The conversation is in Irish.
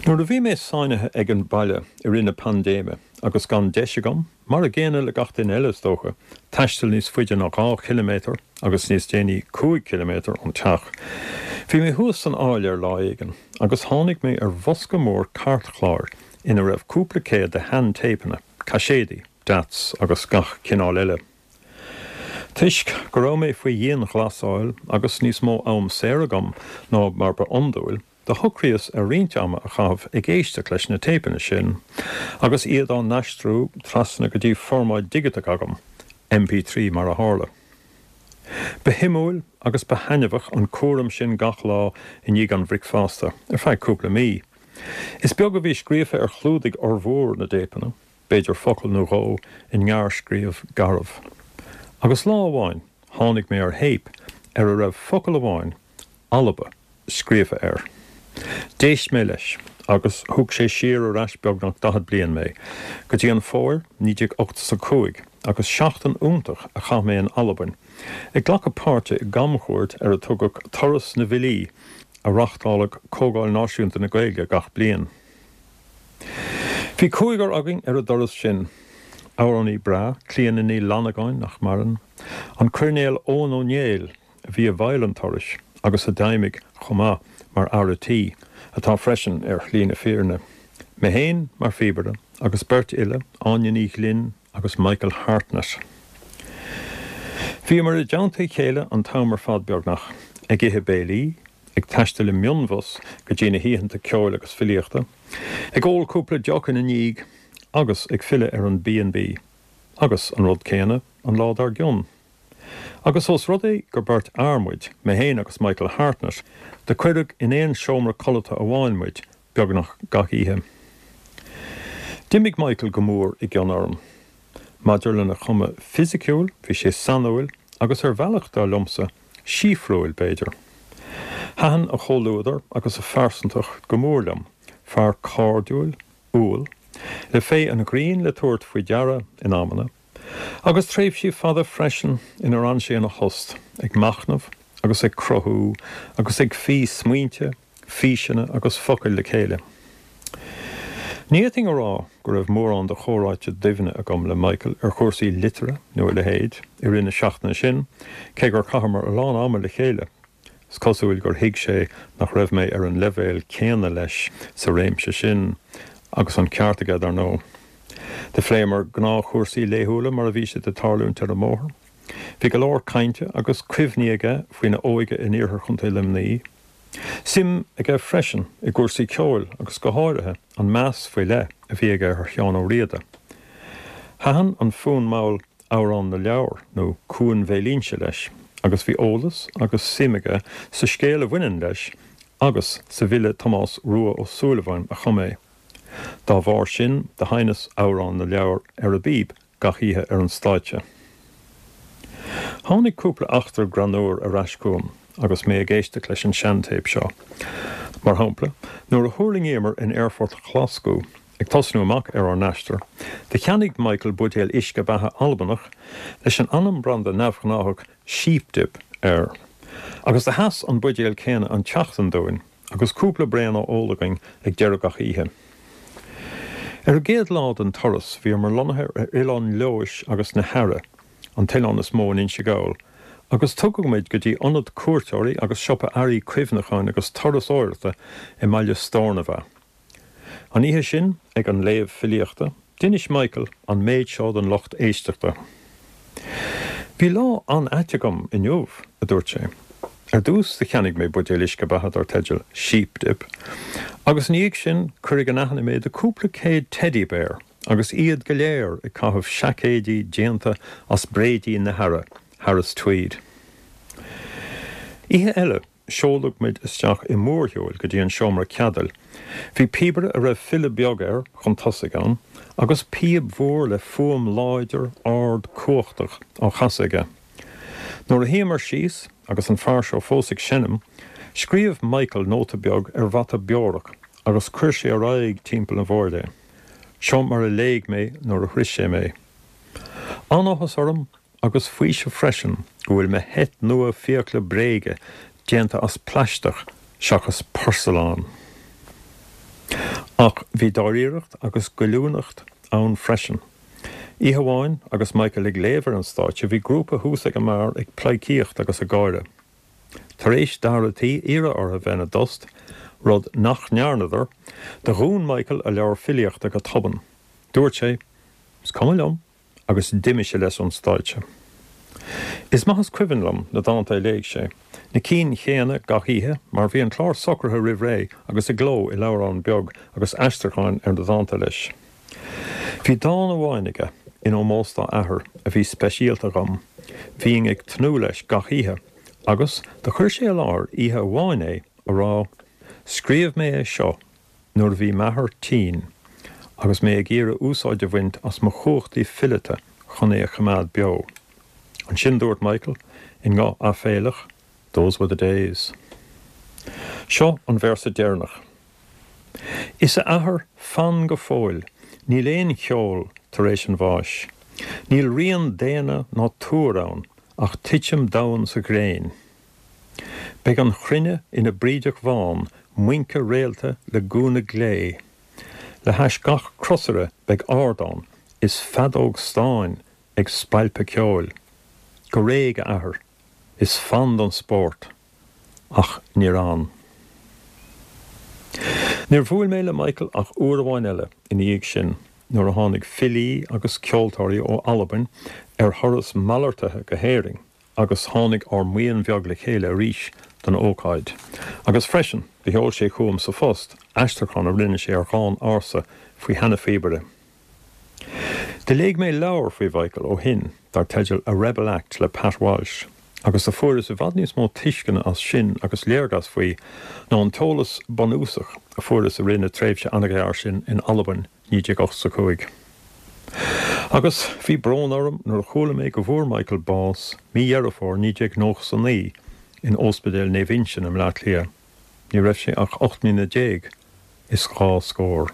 Nuair a bhí mé sáinnithe ag an baile i rith na paindéime agus gan deis agam, mar a gcéanna le gach duine eile is dócha, taisteal níos faide ná 2 chiliméadar agus níos déanaí 5 chiliméadar ón teach, bhí mé thuas san áiléar lá éigin agus tháinig mé ar bhosca mór cairtchláir ina raibh cúpla céad de shean-téipeanna, caiséadaí, DATs agus gach cineál eile. Toisc go raibh mé faoi dhianghlasáil agus níos mó am saor agam ná mar ba iondúil, Do shocraíos ar roinnt ama a chaitheamh ag éisteacht leis na téipeanna sin agus iad á n-aistriú trasna go dtí formáid dhigiteach agam, MP3 mar a tharla. Ba shuimiúil agus ba thaitneamhach an cúram sin gach lá i ndiaidh an bhricfeasta, ar feadh cúpla mí. Is beag a bhí scríofa ar chlúdaigh fhormhór na dtéipeanna, b'fhéidir focal nó dhó i ngearrscríobh garbh. Agus lá amháin tháinig mé ar théip ar a raibh focal amháin, Alba, scríofa air. D'éist mé leis agus thug sé siar ar ais beagnach 40 bliain mé, go dtí an fómhar 1985 agus seachtain iontach a chaith mé in Albain, ag glacadh páirte i gcamchuairt ar a tugadh Turas na bhFilí a reáchtáladh Comhdháil Náisiúnta na Gaeilge gach bliain. Bhí cúigear againn ar an dturas sin, amhránaí breá, Clíona Ní Fhlannagáin, nach maireann, an Coirnéal Eoghan Ó Néill, a bhí i bhfeighil an turais agus a d'fheidhmigh chomh maith mar fhear a' tí, atá freisin ar shlí na fírinne, mé féin mar phíobaire agus beirt fhile, Áine Ní Ghlinn agus Michael Hartnett. Bhíomar i dteannta a chéile an t-am ar fad beagnach, ag ithe béilí, ag taisteal i mionbhus go dtí na hoícheanta ceoil agus filíochta, ag ól cúpla deoch ina ndiaidh agus ag filleadh ar an B&B agus an rud céanna an lá dár gcionn. Agus ós rud é gur beirt fhear muid, mé féin agus Michael Hartnett, do cuireadh in aon seomra codlata amháin muid beagnach gach oíche. D'imigh Michael go mór i gcion orm. Maidir lena chuma fisiciúil, bhí sé sainiúil agus ar bhealach, dar liomsa, síofrúil, b'fhéidir. Thaitin a chomhluadar agus a phearsantacht go mór liom, fear cairdiúil, umhal, le féith an ghrinn le tabhairt faoi deara in amanna, Agus tréimhsí fada freisin inar fhan sé ina thost, ag machnamh agus ag cruthú agus ag fí smaointe, físeanna agus focail le chéile. Ní fhéadfainn a rá go raibh mórán de chomhráite doimhne agam le Michael ar chúrsaí liteartha nó a leithéid i rith na seachtaine sin, cé gur chaitheamar a lán ama le chéile. Is cosúil gur thuig sé nach raibh mé ar an leibhéal céanna leis sa réimse sin, agus an ceart aige, dar ndóigh. Do phléamar gnáthchúrsaí laethúla mar a bhí siad ag tarlúint ar an mbóthar. Bhí go leor cainte agus cuimhní aige faoina óige in iarthar Chontae Luimnigh. Suim aige freisin i gcúrsaí ceoil agus go háirithe an meas faoi leith a bhí aige ar Sheán Ó Riada. Thaitin an fonn mall Amhrán na Leabhar nó Cuan Bhéal Inse leis agus bhí eolas agus suim aige sa scéal a bhaineann leis agus sa bhfile Tomás Rua Ó Súilleabháin a chum é. Dá bharr sin do sheinneas Amhrán na Leabhar ar an bpíb gach oíche ar an stáitse. Tháinig cúpla eachtra greannúr ar ais chugam agus mé ag éisteacht leis an seantéip seo. Mar shampla, nuair a thuirlingíomar in aerfort Ghlaschú, Ag tosnú amach ar ár n-aistear, do cheannaigh Michael buidéal uisce beatha Albanach leis an ainm branda neamhghnáthach Sheep Dip air. Agus do sheas an buidéal céanna an tseachtain dúinn, agus cúpla braon á ól againn ag deireadh gach oíche. Ar an gcéad lá den turas, bhíomar lonnaithe ar Oileán Leodhais agus na hEarra, an t-oileán is mó in Inse Gall, agus tugadh muid go dtí ionad cuairteoirí agus siopa earraí cuimhneacháin agus turasóireachta i mbaile Steornabhagh. An oíche sin, ag an léamh filíochta, d'inis Michael an méid seo don lucht éisteachta. Bhí lá an-ait agam inniu, a dúirt sé. Ar dtús do cheannaigh mé buidéal uisce beatha dar teideal Sheep Dip, agus ina dhiaidh sin cuireadh in aithne mé do cúpla céad teddy bear agus iad go léir ag caitheamh seaicéidí déanta as bréidín na hEarra, Harris Tweed. Oíche eile, Seoladh muid isteach i mórshiúil go dtí an seomra ceadail. Bhí píobaire a raibh filleadh beag air chun tosaigh ann, agus píob mhór le fuaim láidir, ard, cumhachtach á chasadh aige. Nuair a shuíomar síos, agus an fear seo fós ag seinm, scríobh Michael nóta beag ar mhata beorach agus chuir sé ar aghaidh timpeall an bhoird é. Seo mar a léigh mé nuair a shroich sé mé. An-áthas orm agus faoiseamh freisin go bhfuil mo sheit nua fiacla bréige déanta as plaisteach seachas porsalán. Ach bhí dáiríreacht agus goilliúnacht ann freisin. Oíche amháin agus Michael ag léamh ar an stáitse bhí grúpa thuas ag an mbeár ag pleidhcíocht agus ag gáire. Tar éis d'fhear a' tí iarraidh orthu bheith ina dtost, rud nach ndearnadar, do dhún Michael a leabhar filíochta go tobann. Dúirt sé, Is cuma liom, agus d'imigh sé leis ón stáitse. Is maith is cuimhin liom na dánta a léigh sé, na cinn chéanna gach oíche, mar bhí an clár socraithe roimh ré agus i gcló i leabhrán beag agus aistriúcháin ar na dánta leis. Bhí dán amháin aige, in ómós dá athair, a bhí speisialta dhom. Bhínn ag tnúth leis gach oíche, agus do chuir sé i láthair oíche amháin é, a rá, 'Scríobh mé é seo nuair a bhí m'athair tinn agus mé ag iarraidh úsáid a bhaint as mo chumhachtaí fileata chun é a choimeád beo. Ansin dúirt Michael, i nguth aiféalach, Those were the days. Seo an véarsa deireanach. Is a athair, fan go fóill, níl aon cheol tar éis an bháis. Níl rian daonna ná túir ann ach titim domhain sa ghréin. Beidh an chruinne ina brídeach bhán, muince réalta le gúna glé. Le hais gach crosaire beidh ardán is feadóg stáin ag spalpadh ceoil. Go réidh, a athair, is fan don spórt. Ach níor fhan. Níor bhuail mé le Michael ach uair amháin eile ina dhiaidh sin, nuair a tháinig filí agus ceoltóirí ó Albain ar thuras malartaithe go hÉirinn. agus tháinig ár mbuíon bheag le chéile arís don ócáid. Agus freisin, do sheol sé chugam sa phost aistriúchán a rinne sé ar dhán ársa faoi sheana-phíobaire. Do léigh mé leabhar faoi Mhichael ó shin, dar teideal A Rebel Act le Pat Walsh, agus do fuaireas i bhfad níos mó tuisceana as sin agus léargas faoi ná an t-eolas bunúsach a fuaireas i rith na tréimhse an-ghearr sin in Albain 1985. Agus bhí brón orm nuair a chuala mé go bhfuair Michael bás mí Dheireadh Fómhair 1999 in Óspidéal Naomh Uinseann i mBleá Cliath. Ní raibh sé ach 18 mbliana is dhá scór.